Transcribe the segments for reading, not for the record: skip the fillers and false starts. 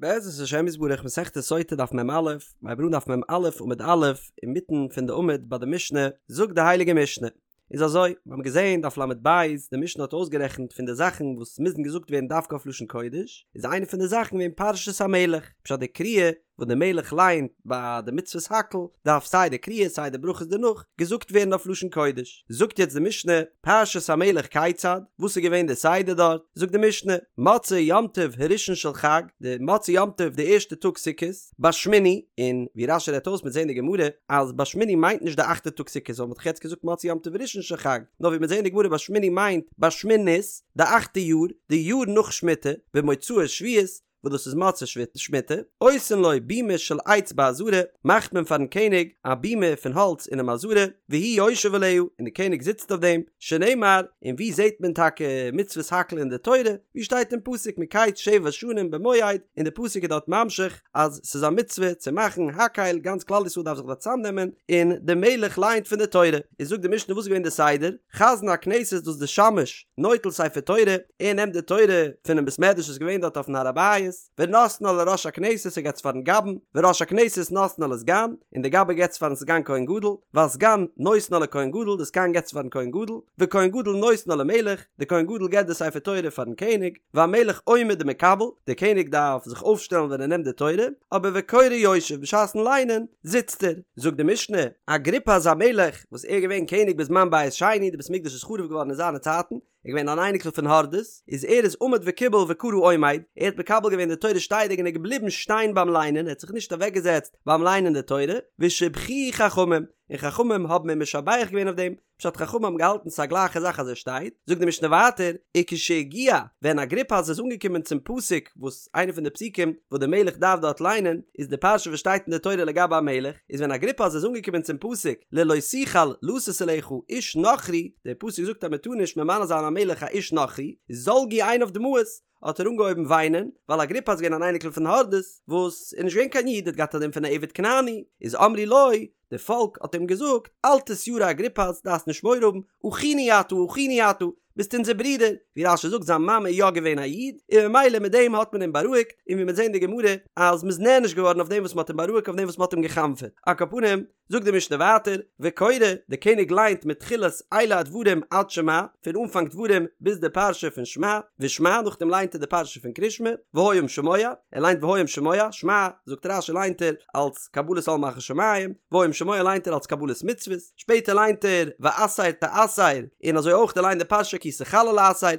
בעזרת השם יתברך מסכת סוטה דף מ"א, מ'הייבט אן דף מ"א עמוד א', אינמיטן פון די עמוד ביי די משנה, זאגט די הייליגע משנה, איז אזוי, מיר האבן געזען דף ל"ב, די משנה האט אויסגערעכנט פון די זאכן וואס מוזן געזאגט ווערן דווקא אויף לשון קודש, איז איינע פון די זאכן געווען פרשת המלך, פשט די קריאה וואס די מלך ליינט ביי די מצוות הקהל, דארף סיי די קריאה סיי די ברכות דערנאך געזאגט ווערן אויף לשון קודש. זאגט יעצט די משנה, פרשת המלך כיצד, וואס איז געווען די סדר דארט? זאגט די משנה, מוצאי יום טוב הראשון של חג, די מוצאי יום טוב די ערשטע טאג סוכות, בשמיני, און ווי רש"י רעדט אויס מ'וועט זען אין די גמרא אז בשמיני מיינט נישט די אכטע טאג סוכות ווייל מ'האט דאך יעצט געזאגט מוצאי יום טוב ראשון של חג, נאר ווי מ'וועט זען אין די גמרא בשמיני מיינט בשמינית, די אכטע יאר, די יאר נאך שמיטה, במוצאי שביעית, וואס דאס איז מוצאי שמיטה, עושין לו בימה של עץ בעזרה, מאכט מען פארן קעניג א בימה פון האלץ אינעם עזרה, והוא יושב עליה, און די קעניג זיצט אויף דעם, שנאמר, און ווי זעט מען טאקע מצוות הקהל אין די תורה, ווי שטייט אין פסוק מקץ שבע שנים במועד, און די פסוק איז דארט ממשיך אז ס'איז א מצוה צו מאכן הקהל, גאנץ כלל ישראל דארף זיך דארט צאמנעמען, און די מלך לייענט פון די תורה, איז זאגט די משנה וואס איז געווען די סדר, חזן הכנסת דאס די שמש, נוטל ספר תורה, ער נעמט די תורה פונעם בית מדרש וואס איז געווען דארט אויפן הר הבית, ונותנה לראש הכנסת ער געבט עס פארן גבאי'ן, וראש הכנסת נותנה לסגן, און די גבאי געבט עס פארן סגן כהן גדול, והסגן נותנה לכהן גדול, די סגן געבט עס פארן כהן גדול, וכהן גדול נותנה למלך, די כהן גדול געבט די ספר תורה פארן קעניג, והמלך עומד ומקבל, די קעניג דארף זיך אויפשטעלן ווען ער נעמט די תורה, אבער וקורא יושב, בשעת'ן ליינען זיצט ער. זאגט די משנה, אגריפס המלך, וואס ער איז געווען קעניג בזמן בית שני, די בית מקדש איז חרוב געווארן אין זיינע צייטן, ער איז געווען אן אייניקל פון הורדוס, איז ער איז עמד וקיבל וקרא עומד, ער האט מקבל געווען די תורה שטייעדיג און איז געבליבן שטיין ביים ליינען, ער האט זיך נישט אוועקגעזעצט ביים ליינען די תורה, ושבחוהו חכמים, און חכמים האבן אים משבח געווען אויף דעם, פשט חכמים האבן געהאלטן ס'איז א גלייכע זאך אז ער שטייט, זאגט די משנה ווייטער, וכשהגיע, ווען אגריפס איז אנגעקומען צום פסוק וואס איינע פון די פסוקים וואס די מלך דארף דארט ליינען איז די פרשה וואס שטייט אין די תורה לגבי א מלך, איז ווען אגריפס איז אנגעקומען צום פסוק ללא תוכל לתת עליך איש נכרי, דער פסוק זאגט אז מען טאר נישט ממנה זיין א מלך א איש נכרי, זלגו עיניו דמעות, האט ער אנגעהויבן וויינען, ווייל אגריפס איז געווען אן אייניקל פון הורדוס, וואס איז נישט געווען קיין איד, ער האט געהאט א דין פון א עבד כנעני, איז אמרו לו, די פאלק האט אים געזאגט, אל תתירא אגריפס, דארפסט נישט מורא האבן, אחינו אתה, אחינו אתה, ביסט אונזער ברודער, ווי רש"י זאגט זיין מאמע איז יא געווען א איד, און ממילא מיט דעם האט מען אים בארואיגט, און ווי מ'וועט זען אין די גמרא אז מ'איז נענש געווארן אויף דעם וואס מ'האט אים בארואיגט אויף דעם וואס מ'האט אים גע'חנפ'עט. על כל פנים, זאגט די משנה ווייטער, וקורא, די קעניג ליינט מתחילת אלה הדברים עד שמע, פון אנפאנג דברים ביז די פרשה פון שמע, ושמע, נאכדעם ליינט ער די פרשה פון קרישמע, והיה אם שמוע, ער ליינט והיה אם שמוע, שמע, זאגט רש"י ליינט ער אלס קבלת עול מלכות שמים, והיה אם שמוע ליינט ער אלס קבלת מצוות, שפעטער ליינט ער ועשר תעשר, און אזוי אויך ער ליינט די פרשה כי תכלה לעשר,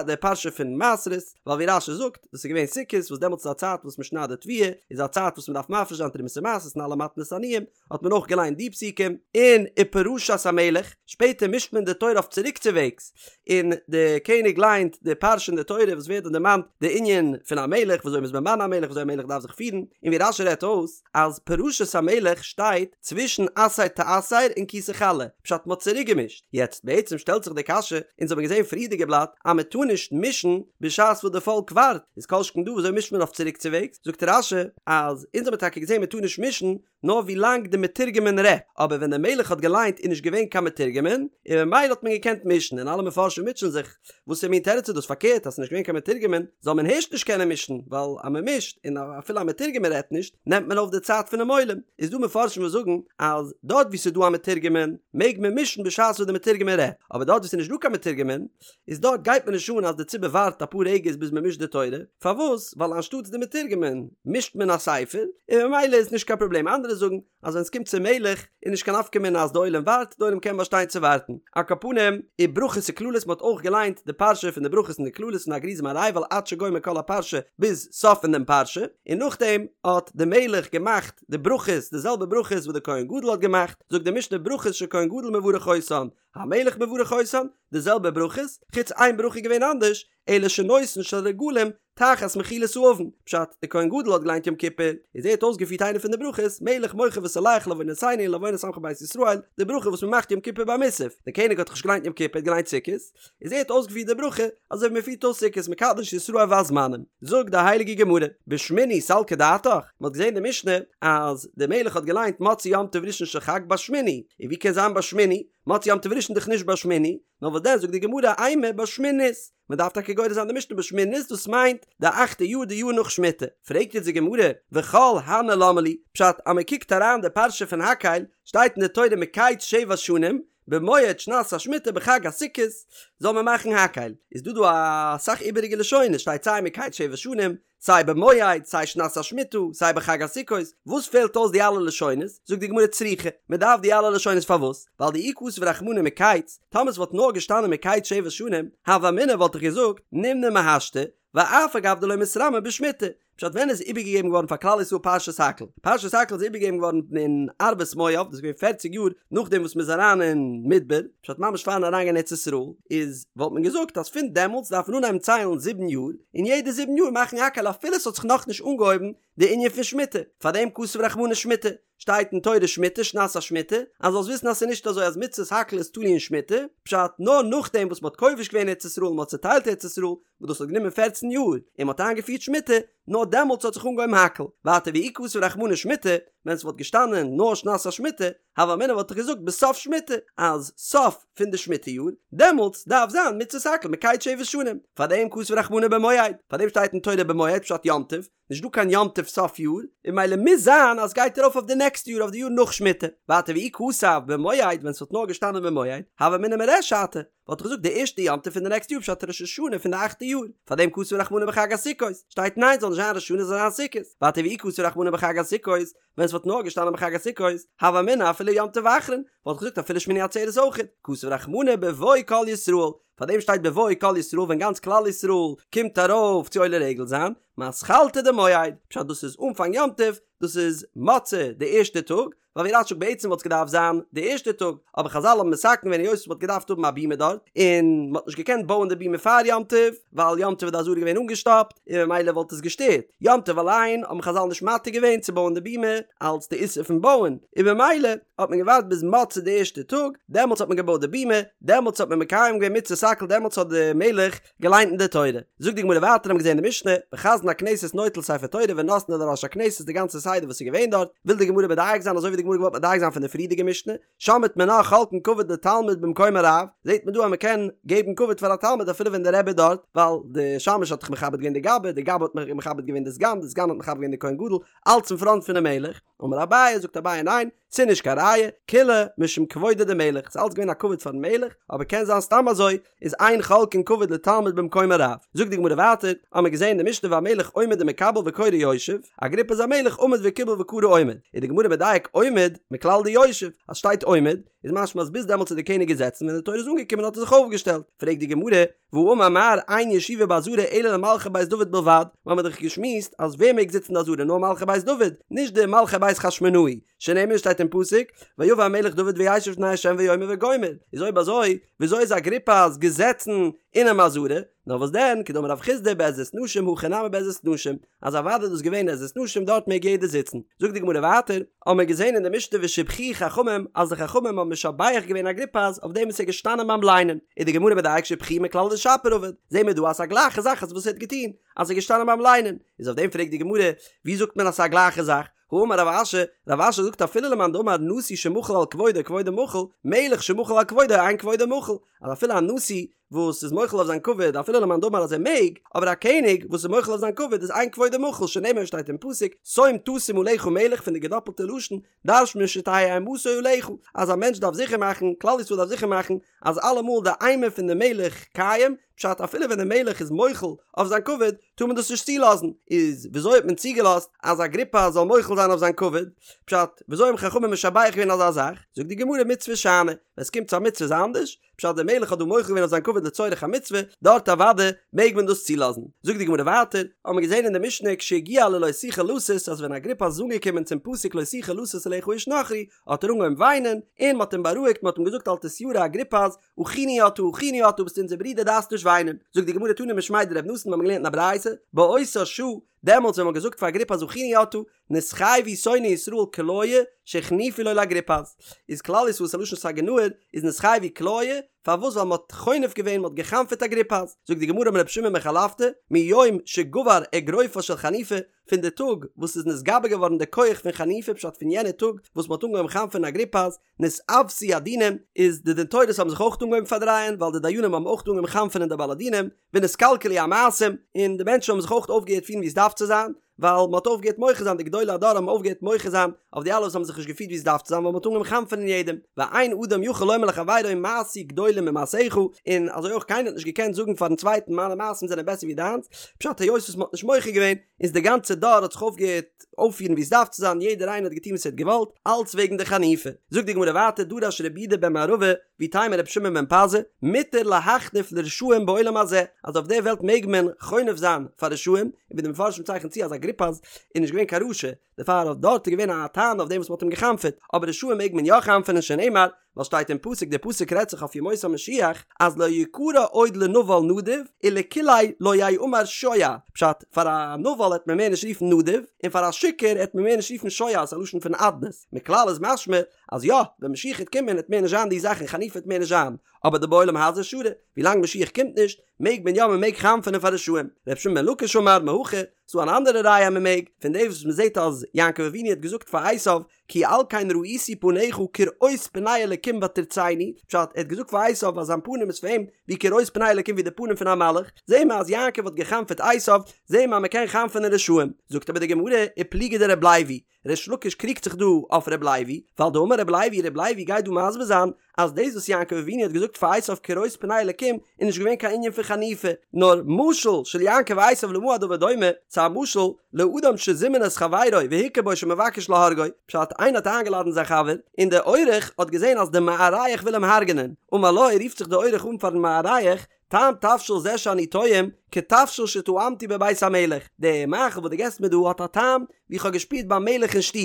די פרשה פון מעשרות, ווייל ווי רש"י זאגט, דאס איז געווען סוכות וואס דעמאלטס איז א צייט וואס מען שניידט די תבואה, איז א צייט וואס מען דארף מפריש זיין תרומות ומעשרות און אלע מתנות עניים, האט מען אויך געליינט די פסוקים, און ופרשת המלך, שפעטער מישט מען די תורה אויף צוריקצווועגס, און די קעניג ליינט די פרשה אין די תורה וואס ווערט דארט דערמאנט די ענין פון א מלך, ווי אזוי מ'איז ממנה א מלך, ווי אזוי א מלך דארף זיך פירן, און ווי רש"י רעדט אויס, אז פרשת המלך שטייט צווישן עשר תעשר און כי תכלה, פשט מ'האט צוריק געמישט, יעצט בעצם שטעלט זיך די קשיא, אונז האבן געזען פריערדיגע בלאט אז מ'טאר נישט מישן בשעת וואס די פאלק ווארט, איז כל שכן דא ווי אזוי מישט מען אויף צוריקצווועגס, זאגט רש"י אז אונז האבן טאקע געזען מ'טאר נישט מישן נאר ווי לאנג די מתורגמן רעדט, אבער ווען די מלך האט געליינט איז נישט געווען קיין מתורגמן, און ממילא האט מען געקענט מישן, און אלע מפרשים מוטשען זיך, וואסער מין תירוץ איז דאס פארקערט אז ס'איז נישט געווען קיין מתורגמן זאל מען הערשט נישט קענען מישן, ווייל אז מען מישט און אפילו א מתורגמן רעדט נישט נעמט מען אויף די צייט פונעם עולם, איז דא מפרשים וואס זאגן אז דארט וואו ס'איז דא א מתורגמן מעג מען מישן בשעת וואס די מתורגמן רעדט, אבער דארט וואו ס'איז נישט דא קיין מתורגמן איז דארט גייט מיר נישט אן אז די ציבור ווארט אפאר רגעס ביז מען מישט די תורה, פארוואס? ווייל אנשטאטס די מתורגמן מישט מען א ספר, און ממילא איז נישט קיין פראבלעם, אנדערע זאגן אז ווען סקומט צום מלך איז נישט קיין נפקא מינה אז די עולם ווארט, די עולם קען באשטיין צו ווארטן. על כל פנים, וברכות וקללות מען האט אויך געליינט די פרשה פון די ברכות און די קללות פון הר גריזים הר עיבל עד שגומר כל הפרשה ביז סוף פון דעם פרשה, און נאכדעם האט די מלך געמאכט די ברכות די זעלבע ברכות וואס די כהן גדול האט געמאכט, זאגט די משנה ברכות שכהן גדול מברך אותן, המלך מברך אותן, די זעלבע ברכות, חוץ איין ברכה איז געווען אנדערש, אלא שנותן של רגלים תחת מחילת העון, פשט, די כהן גדול האט געליינט יום כיפור, איז ער האט אויסגעפירט איינע פון די ברכות, מלך מוחל וסולח לעוונותינו ולעוונות עמך בית ישראל, די ברכה וואס מען מאכט יום כיפור ביי מוסף, די קעניג האט דאך נישט געליינט יום כיפור ער האט געליינט סוכות, איז ער האט אויסגעפירט די ברכה, אזוי ווי מען פירט אויס סוכות מקדש ישראל והזמנים. זאגט די הייליגע גמרא, בשמיני סלקא דעתך, מען האט געזען די משנה אז די מלך האט געליינט מוצאי יום טוב ראשון של חג בשמיני, און ווי קען זיין בשמיני, מוצאי יום טוב ראשון דאך נישט בשמיני, נאר וואס דען זאגט די גמרא אימא בשמינית, מען דארף טאקע גורס זיין די משנה בשמינית דאס מיינט די אכטע יאר די יאר נאך שמיטה, פרעגט יעצט די גמרא וכל הני למה לי, פשט אז מען קוקט אריין די פרשה פון הקהל שטייט אין די תורה מקץ שבע שנים במועד שנת השמיטה בחג הסוכות זאל מען מאכן הקהל, איז דא דא אסאך איבעריגע לשונות שטייט סיי מקץ שבע שנים סיי במועד, סיי שנת השמיטה, סיי בחג הסוכות, וואס פעלט אויס די אלע לשונות? זאגט די גמרא צריכא, מען דארף די אלע לשונות פארוואס? ווייל דאי כתב רחמנא מקץ, טאמער ס'וואלט נאר געשטאנען מקץ שבע שנים, הוה אמינא וואלט איך געזאגט, נימנה מהשתא, ואף על גב דלא מתרמי בשמיטה. פשט ווען איז איבערגעגעבן געווארן פאר כלל ישראל פרשת הקהל? פרשת הקהל איז איבערגעגעבן געווארן אין ערבות מואב, דאס איז געווען פערציג יאר נאכדעם וואס מ'איז אריין אין מדבר, פשט ממש פארן אריינגיין ארץ ישראל, איז וואלט מען געזאגט אז פון דעמאלטס דארף מען אנהייבן ציילן זיבן יאר, און יעדע זיבן יאר מאכן הקהל אפילו ס'האט זיך נאכנישט אנגעהויבן די ענין פון שמיטה, פארדעם כתב רחמנא שמיטה, שטייט אין תורה שמיטה שנת השמיטה, אז זאלסט וויסן אז ס'איז נישט אזוי אז מצוות הקהל איז תלוי אין שמיטה, פשט נאר נאכדעם וואס מ'האט כובש געווען ארץ ישראל און מ'האט צוטיילט ארץ ישראל, וואס דאס האט גענומען פערצן יאר, און מ'האט איינגעפירט שמיטה, נאר דעמאלטס האט זיך אנגעהויבן הקהל, ווייטער ואי כתב רחמנא שמיטה, ווען ס'וואלט געשטאנען נאר שנת השמיטה, הוה אמינא וואלט איך געזאגט בסוף שמיטה, אז סוף פון די שמיטה יאר, דעמאלטס דארף זיין מצוות הקהל מקץ שבע שנים, פארדעם כתב רחמנא במועד, פארדעם שטייט אין תורה במועד פשט יום טוב, נישט דא קיין יום טוב סוף יאר, און ממילא מוז זיין אז סגייט ארויף אויף די נעקסטע יאר אויף די יאר נאך שמיטה, ווייטער ואי כתב במועד ווען ס'וואלט נאר געשטאנען במועד, הוה אמינא מריש שתא, וואלט איך געזאגט די ערשטע יום טוב פון די נעקסטע יאר פשט ראש השנה פון די אכטע יאר, פארדעם כתב רחמנא בחג הסוכות, שטייט ניין ס'זאל נישט זיין ראש השנה ס'זאל זיין סוכות, ווייטער ואי כתב רחמנא בחג הסוכות, ווען ס'וואלט נאר געשטאנען בחג הסוכות, הוה אמינא אפילו יום טוב אחרון, וואלט איך געזאגט אפילו שמיני עצרת אויכעט, כתב רחמנא בבוא כל ישראל, פארדעם שטייט בבוא כל ישראל ווען גאנץ כלל ישראל קומט ארויף צו עולה רגל זיין, מתחלתא דמועד, פשט דאס איז אנפאנג יום טוב, דאס איז מוצאי די ערשטע טאג, ווייל ווי רש"י זאגט בעצם וואלט עס געדארפט זיין די ערשטע טאג, אבער חזל האבן מתקן געווען היות מ'האט געדארפט האבן א בימה דארט, און מ'האט נישט געקענט בויען די בימה פאר יום טוב, ווייל יום טוב איז די עזרה געווען אנגעשטאפט, און ממילא וואלט עס געשטערט. יום טוב אליין האבן חזל נישט מתיר געווען צו בויען די בימה, אלץ די איסור פון בויען, און ממילא האט מען געווארט ביז מוצאי די ערשטע טאג, דעמאלטס האט מען געבויט די בימה, דעמאלטס האט מען מקיים געווען מצוות הקהל דעמאלטס האט די מלך געליינט אין די תורה. זאגט די גמרא ווייטער האבן געזען אין די משנה, וחזן הכנסת נוטל ספר תורה ונותנו לראש הכנסת די גאנצע סדר וואס איז געווען דארט, וויל די גמרא מדייק זיין אזוי ווי די גמרא געוואלט מדייק זיין פון די פריערדיגע משנה, שמעת מינה חולקין כבוד לתלמיד במקום הרב, זעט מען דא אז מען קען געבן כבוד פאר א תלמיד אפילו ווען דער רבי איז דארט, ווייל די שמש האט דאך מכבד געווען די גבאי, די גבאי האט מכבד געווען די סגן, די סגן האט מכבד געווען די כהן גדול, אלץ אין פראנט פונעם מלך, אמר אביי, זאגט אביי ניין, ס'איז נישט קיין ראיה, כולה משום כבודו דמלך, ס'איז אלץ געווען א כבוד פארן מלך, אבער קען זיין סתם אזוי, איז אין חולקין כבוד לתלמיד במקום הרב. זאגט די גמרא ווייטער, האמיר געזען אין די משנה והמלך עומד ומקבל וקורא יושב, אגריפס המלך עמד וקיבל וקרא עומד, איז די גמרא מדייק עומד מכלל דיושב, אז שטייט עומד, איז משמע אז ביז דעמאלטס איז די קעניג געזעצן ווען די תורה איז אנגעקומען האט ער זיך אויפגעשטעלט, פרעגט די גמרא, והאמר מר אין ישיבה בעזרה אלא למלכי בית דוד בלבד, מיר האבן דאך געשמועסט אז ווער מעג זיצן אין די עזרה נאר מלכי בית דוד, נישט די מלכי בית חשמונאי, שנאמר שטייט אין פסוק, ויבא המלך דוד וישב לפני ה' ויאמר וגומר, איז אויב אזוי וויאזוי איז אגריפס געזעצן אינעם עזרה? נאר וואס דען, כדאמר רב חסדא בעזרת נשים הכא נמי בעזרת נשים, אז אוודאי איז דאס געווען עזרת נשים דארט מעג יעדער זיצן. זאגט די גמרא ווייטער, האבן מיר געזען אין די משנה ושיבחוהו חכמים אז די חכמים האבן משבח געווען אגריפס אויף דעם וואס ער איז געשטאנען ביים ליינען, איז די גמרא מדייק שיבחוהו מכלל דשפיר עבד, זעהן מיר דא אז ס'איז א גלייכע זאך אז וואס ער האט געטון, אז ער איז געשטאנען ביים ליינען, איז אויף דעם פרעגט די גמרא, ווי זאגט מען אז ס'איז א גלייכע זאך? האמר רב אשי, רב אשי זאגט אפילו למאן דאמר נשיא שמחל על כבודו כבודו מחול, מלך שמחל על כבודו אין כבודו מחול, אז אפילו א נשיא וואס איז מוחל אויף זיין כבוד אפילו למאן דאמר אז ער מעג, אבער א קעניג וואס איז מוחל אויף זיין כבוד איז אין כבודו מחול שנאמר שטייט אין פסוק שום תשים עליך מלך פון די געדאפלטע לשון דרש'נט מען שתהא אימתו עליך אז א מענטש דארף זיכער מאכן כלל ישראל דארף זיכער מאכן אז אלעמאל די אימה פון די מלך קיים, פשט אפילו ווען די מלך איז מוחל אויף זיין כבוד טאר מען דאס נישט צולאזן, איז וויאזוי האט מען צוגעלאזט אז אגריפס זאל מוחל זיין אויף זיין כבוד? פשט וויאזוי האבן חכמים משבח געווען אזא זאך? זאגט די גמרא מצוה שאני, ווען ס'קומט צו א מצוה איז אנדערש, פשט דער מלך האט דא מוחל געווען אויף זיין כבוד לצורך המצוה, דארט אוודאי מעג מען דאס צולאזן. זאגט די גמרא ווייטער, האבן מיר געזען אין די משנה כשהגיע ללא תוכל לתת אז ווען אגריפס איז אנגעקומען צום פסוק לא תוכל לתת עליך איש נכרי האט ער אנגעהויבן וויינען, און מ'האט אים בארואיגט מ'האט אים געזאגט אל תתירא אגריפס, אחינו אתה אחינו אתה ביסט אונזער ברודער דארפסט נישט וויינען. זאגט די גמרא תנא משמיה דרב נתן מיר האבן געלערנט אין א ברייתא, באותה שעה, דעמאלטס ווען מ'האט געזאגט פאר אגריפס אחינו אתה, נתחייבו שונאי ישראל כליה שהחניפו לו לאגריפס, איז כלל ישראל ס'א לשון סגי נהור, איז נתחייבו כליה, פארוואס ווייל מ'האט חונף געווען מ'האט גע'חנפ'עט אגריפס, זאגט די גמרא אמר רבי שמעון בן חלפתא, מיום שגבר אגרופה של חניפה, פון די טאג וואס איז נתגבר געווארן די כח פון חניפה פשט פון יענע טאג וואס מ'האט אנגעהויבן חנפ'ענען אגריפס, נתעוותו הדינים, איז די דין תורות האבן זיך אויך אנגעהויבן פארדרייען ווייל די דיינים האבן אויך אנגעהויבן חנפ'ענען די בעלי דינים, ונתקלקלו המעשים, און די מענטשן האבן זיך אויך אויפגעהערט פירן ווי עס דארף צו זיין, ווייל מ'האט אויפגעהערט מוחה זיין, די גדולי הדור האבן אויפגעהערט מוחה זיין אויף די אלע וואס האבן זיך נישט געפירט ווי עס דארף צו זיין ווייל מ'האט אנגעהויבן חנפ'ענען יעדעם, ואין אדם יכול לומר לחבירו מעשי גדולים ממעשיך, און אזוי אויך קיינער האט נישט געקענט זאגן פארן צווייטן מיינע מעשים זענען בעסער ווי דיינס, פשט היות וואס מ'האט נישט מוחה געווען, איז די גאנצע דור האט זיך אויפגעהערט אויפפירן ווי עס דארף צו זיין, יעדער איינער האט געטון וואס ער האט געוואלט, אלץ וועגן די חניפה. זאגט די גמרא ווייטער, דרש רבי יהודה בן מערבא, ואיתימא רבי שמעון בן פזי, מותר להחניף לרשעים בעולם הזה, אז אויף דער וועלט מעג מען חונף זיין פאר רשעים, און ווי די מפרשים צייכענען צו אז אגריפס איז נישט געווען קיין רשע, דערפאר אויף דארט איז געווען א טענה אויף דעם וואס מען האט אים גע'חנפ'עט, אבער רשעים מעג מען יא חנפ'ענען שנאמר, ווייל שטייט אין פסוק, דער פסוק רעדט זיך אויף ימות המשיח, אז לא יקרא עוד לנבל נדיב, ולקולי לא יאמר שוע, פשט, פאר א נבל העט מען מער נישט רופן נדיב, און פאר א שיכור העט מען מער נישט רופן שוע, ס'איז א לשון פון אדנות, מכלל איז משמע, אז יא, ווען משיח העט קומען העט מער נישט זיין די זאכן, חניפה העט מער נישט זיין, אבער דבעולם הזה שרי, ווילאנג משיח קומט נישט, מעג מען יא מען מעג חנפ'ענען פאר רשעים, ר' שמעון בן לקיש אמר מהכא, ס'דא אן אנדערע ראיה אז מען מעג, פון דעם וואס מען זעט אז יעקב אבינו האט געזאגט פאר עשיו, כי על כן ראיתי פניך כראות פני אלקים ותרצני, פשט, ער האט געזאגט פאר עשיו אז זיין פנים איז פאר אים ווי כראות פני אלקים ווי די פנים פון א מלאך, זעהן מיר אז יעקב האט גע'חנפ'עט עשיו, זעהן מיר אז מען קען חנפ'ענען רשעים, זאגט אבער די גמרא, ופליגא דרבי לוי, ריש לקיש קריגט זיך דא אויף ר' לוי, ווייל דאמר ר' לוי, ר' לוי גייט דא מסביר זיין אז דאס וואס יעקב אבינו האט געזאגט פאר עשיו כראות פני אלקים איז נישט געווען קיין ענין פון חניפה, נאר משל של יעקב ועשיו למה הדבר דומה, ס'איז א משל לאדם שזימן את חברו והכיר בו שמבקש להורגו, פשט איינער האט איינגעלאדענט זיין חבר און דער אורח האט געזען אז דער מארח וויל אים הרג'נען, אמר לו רופט זיך דער אורח אן פארן מארח, טעם תבשיל זה שאני טועם, כתבשיל שטעמתי בבית המלך, די מאכל וואס דו געסט מיר דא האט א טעם ווי איך האב געשפירט ביים מלך אין שטוב.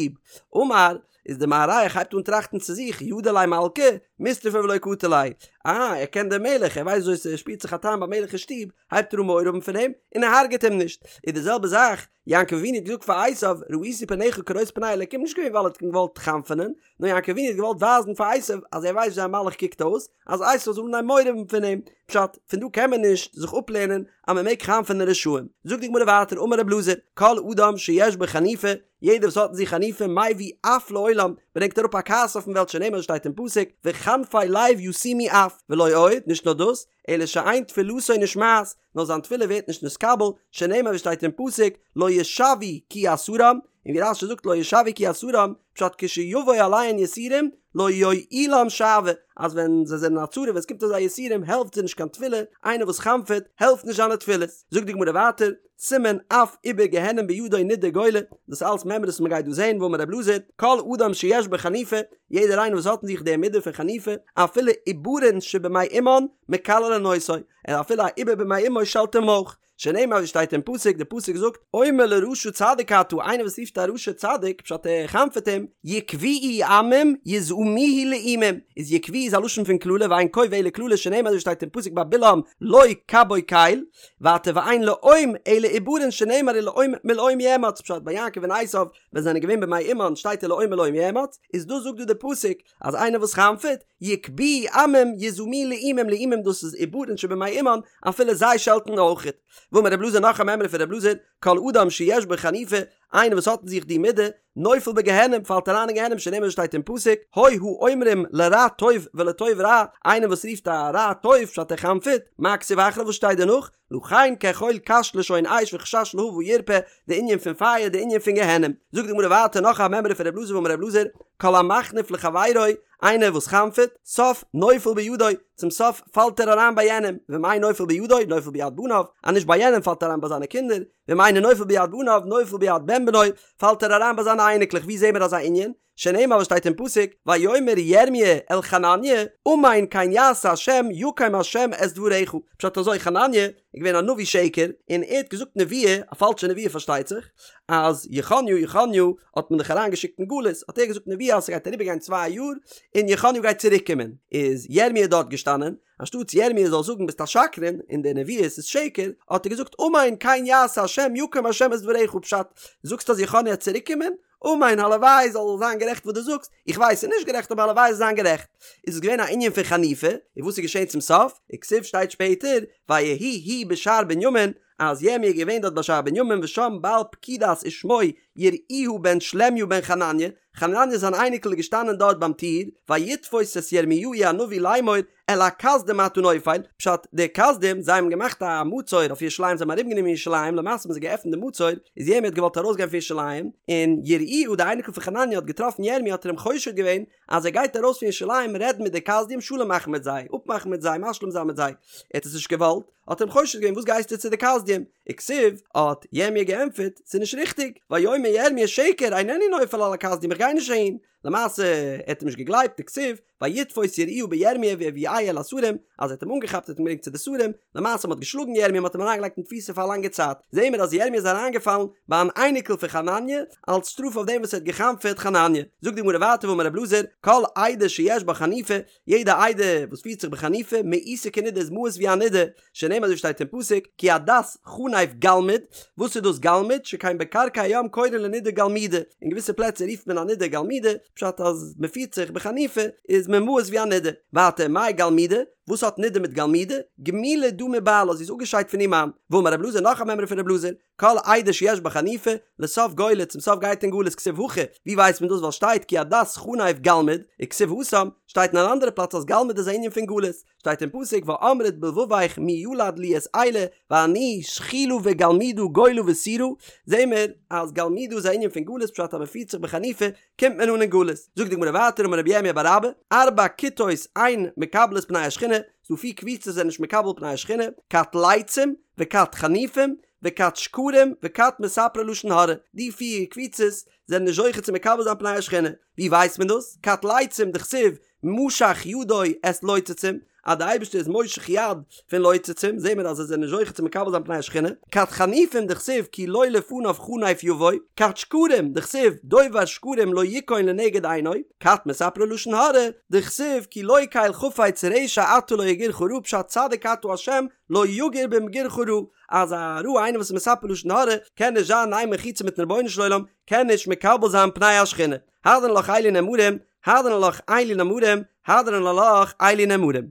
אמר, איז די מארח הייבט אן טראכטן צו זיך, ידע ליה מלכא, מיסתפי ולא קטיל ליה. אה, ער קען דעם מלך, ער ווייסט וויאזוי ס'שפירט זיך א טעם ביים מלך אין שטוב, הייבט ער אן מורא האבן פון אים, און ער הרג'עט אים נישט. איז די זעלבע זאך, יעקב אבינו האט געזאגט פאר עשיו, ראיתי פניך כראות פני אלקים, נישט געווען ווייל ער האט אים געוואלט חנפ'ענען, נאר יעקב אבינו האט געוואלט ווייזן פאר עשיו אז ער ווייסט וויאזוי א מלאך קוקט אויס, אז עשיו זאל אנהייבן מורא האבן פון אים. פשט, פון דא קען מען נישט זיך אפלערנען אז מען מעג חנפ'ענען רשעים. זאגט די גמרא ווייטער, אמר רב אלעזר, כל אדם שיש בו חניפה, יעדער וואס האט אין זיך חניפה מביא אף לעולם, ברענגט אראפ א כעס אויפן וועלט שנאמר שטייט אין פסוק, וחנפי לב ישימו אף, ולא עוד, נישט נאר דאס, אלא שאין תפילתו נשמעת, נאר זיין תפילה ווערט נישט נתקבל, שנאמר ווי שטייט אין פסוק, לא ישועו כי יסרם, און ווי רש"י זאגט לא ישועו כי יסרם, פשט כשיבוא עליהן יסורים, לא יועילם שועה, אז ווען זיי זענען א צרה ווען עס קומט אויף זיי יסורים העלפט זיי נישט קיין תפילה, איינער וואס חנפ'עט העלפט נישט זיינע תפילות. זאגט די גמרא ווייטער, סימן אף עובר גיהנום בידו נידה גולה, דאס אלס מימרות וואס מען גייט דא זען, ואמר רב אלעזר, כל אדם שיש בו חניפה, יעדער איינער וואס האט אין זיך די מידה פון חניפה, אפילו עוברין שבמעי אמן מקללין אותו, און אפילו א עובר במעי אמו שעלט אים אויך, שנאמר ווי שטייט אין פסוק, די פסוק זאגט, אומר לרשע צדיק אתה, איינער וואס רופט א רשע צדיק, פשט ער חנפ'עט אים, יקבוהו עמים יזעמוהו לאומים, איז יקבוהו איז א לשון פון קללה ואין קוב אלא קללה שנאמר ווי שטייט אין פסוק ביי בלעם לא קבה קל, ווייטער ואין לאום אלא עוברין שנאמר ולאום מלאום יאמץ, פשט ביי יעקב און עשיו ווען זיי זענען געווען במעי אמן שטייט ולאום מלאום יאמץ, איז דאס זאגט דא די פסוק אז איינער וואס חנפ'עט, יקבוהו עמים יזעמוהו לאומים לאומים דאס איז עוברין שבמעי אמן אפילו זיי שעלטן אויכעט. ואמר רב אלעזר נאך א מימרא פון רב אלעזר, כל אדם שיש בו חניפה, איינער וואס האט אין זיך די מידה, נופל בגיהנום, פאלט אריין אין גיהנום שנאמר שטייט אין פסוק, הוי האומרים לרע טוב ולטוב רע, איינער וואס רופט א רע טוב פשט ער חנפ'עט, מה כתיב אחריו וואס שטייט דערנאך, לכן כאכול קש לשון אש וחשש להבה ירפה, די ענין פון פייער די ענין פון גיהנום. זאגט די גמרא ווייטער נאך א מימרא פון רב אלעזר ואמר רב אלעזר, כל המחניף לחבירו, איינער וואס חנפ'עט, סוף נופל בידו, צום סוף פאלט ער אריין ביי יענעם, ואם אין נופל בידו, נופל ביד בניו, אז נישט ביי יענעם פאלט ער אריין ביי זיינע קינדער, ואם אינו נופל ביד בניו, נופל ביד בן בנו, פאלט ער אריין ביי זיינע אייניקלעך, ווי זעהן מיר אזא ענין? שנאמר וואס שטייט אין פסוק, ויאמר ירמיה אל חנניה, אמן כן יעשה השם יקם השם את דבריך, פשט אזוי חנניה איז געווען א נביא שקר, און ער האט געזאגט נבואה, א פאלשע נבואה פארשטייט זיך, אז יכניה יכניה האט מען דאך אריין געשיקט אין גלות, האט ער געזאגט נבואה אז ס'גייט אריבער גיין צוויי יאר און יכניה גייט צוריק קומען, איז ירמיה דארט געשטאנען, אנשטאטס ירמיה זאל זאגן ביסט א שקרן און די נביאות איז שקר, האט ער געזאגט אמן כן יעשה השם יקם השם את דבריך, פשט, זאגסט אז יכניה וועט צוריק קומען? אמן הלוואי זאל זיין גערעכט וואס דו זאגסט, איך ווייס ס'איז נישט גערעכט אבער הלוואי זאל זיין גערעכט. איז עס געווען א ענין פון חניפה, און וואס איז געשען צום סוף? וכתיב שטייט שפעטער, ויהי הוא בשער בנימין, אז ירמי' איז געווען דארט ביי שער בנימין ושם בעל פקידת ושמו יראיהה בן שלמיה בן חנניה, חנניה זיין אייניקל איז געשטאנען דארט ביים טיר, ויתפוס את ירמיהו הנביא לאמור אל הכשדים אתה נופל, פשט, די כשדים, זיי האבן געמאכט א מצור אויף ירושלים, זיי האבן ארומגענומען ירושלים, למעשה האבן זיי געעפנט די מצור, איז ירמי' האט געוואלט ארויסגיין פון ירושלים, און יראיהה די אייניקל פון חנניה האט געטראפן ירמי' האט ער אים חושד געווען אז ער גייט ארויס פון ירושלים רעדן מיט די כשדים שלום מאכן מיט זיי, אפמאכן מיט זיי, משלים זיין מיט זיי, ער האט עס נישט געוואלט, האט ער אים חושד געווען וואס גייסטו צו די כשדים? וכתיב, האט ירמי' געענטפערט, ס'איז נישט ריכטיג, ויאמר ירמי' שקר אינני נופל על הכשדים איך גיי נישט אהין, למעשה ער האט אים נישט געגלייבט וכתיב, ויתפוס יראיהה בירמי' ויביאהו אל השרים, אז ער האט אים אנגעכאפט האט אים געברענגט צו די שרים, למעשה מ'האט געשלאגן ירמי' מ'האט אים אריינגעלייגט אין תפיסה פאר א לאנגע צייט, זעהן מיר אז ירמי' איז אריינגעפאלן ביי אן אייניקל פון חנניה, אלס שטראף אויף דעם וואס ער האט גע'חנפ'עט חנניה. זאגט די גמרא ווייטער ואמר רב אלעזר, כל עדה שיש בה חניפה, יעדע עדה וואס פירט זיך בחניפה, מאוסה כנידה איז מאוס ווי א נידה, שנאמר אזוי שטייט אין פסוק, כי עדת חנף גלמוד, וואס איז דאס גלמוד, שכן בקרקע הים קורין לנידה גלמודה, אין געוויסע פלעצער רופט מען א נידה גלמודה, פשט אז מען פירט זיך בחניפה איז מען מאוס ווי א נידה. ווייטער מאי גלמודה, וואס האט נידה מיט גלמודה, גמולה דא מבעלה, זי איז אפגעשיידט פון איר מאן. ואמר רב אלעזר נאך א מימרא פון רב אלעזר, כל עדה שיש בה חניפה, לסוף גולה, צום סוף גייט אין גלות כתיב הכא, ווי ווייסט מען דאס ווייל שטייט כי עדת חנף גלמוד, וכתיב התם, שטייט אין אן אנדערע פלאץ אז גלמוד איז א ענין פון גלות, שטייט אין פסוק ואמרת בלבבך מי ילד לי את אלה ואני שכולה וגלמודה גולה וסורה, זעהן מיר אז גלמודה איז א ענין פון גלות פשט אז מען פירט זיך בחניפה קומט מען אן אין גלות, זאגט די גמרא ווייטער אמר רבי ירמיה בר אבא, ארבע כיתות אין מקבלות פני השכינה, ס'דא פיר קבוצות זענען נישט מקבל פני השכינה, כת לצים, וכת חניפים, וכת שקרים, וכת מספרי לשון הרע, די פיר קבוצות זענען נישט זוכה צו מקבל זיין פני השכינה, ווי ווייסט מען דאס? כת לצים דכתיב משך ידו את לוצצים, אז די אייבערשטער איז מושך יד פון לוצצים, זעהן מיר אז זיי זענען נישט זוכה צו מקבל זיין פני השכינה, כת חניפים דכתיב כי לא לפניו חנף יבוא, כת שקרים דכתיב דובר שקרים לא יכון לנגד עיני, כת מספרי לשון הרע דכתיב כי לא קל חפץ רשע אתה לא יגורך רע פשט צדיק אתה ה' לא יגור במגורך רע, אז א רע איינער וואס איז מספר לשון הרע קען נישט זיין אין איין מחיצה מיטן רבונו של עולם, קען נישט מקבל זיין פני השכינה. הדרן עלך אלו נאמרים, הדרן עלך אלו נאמרים, הדרן עלך אלו נאמרים.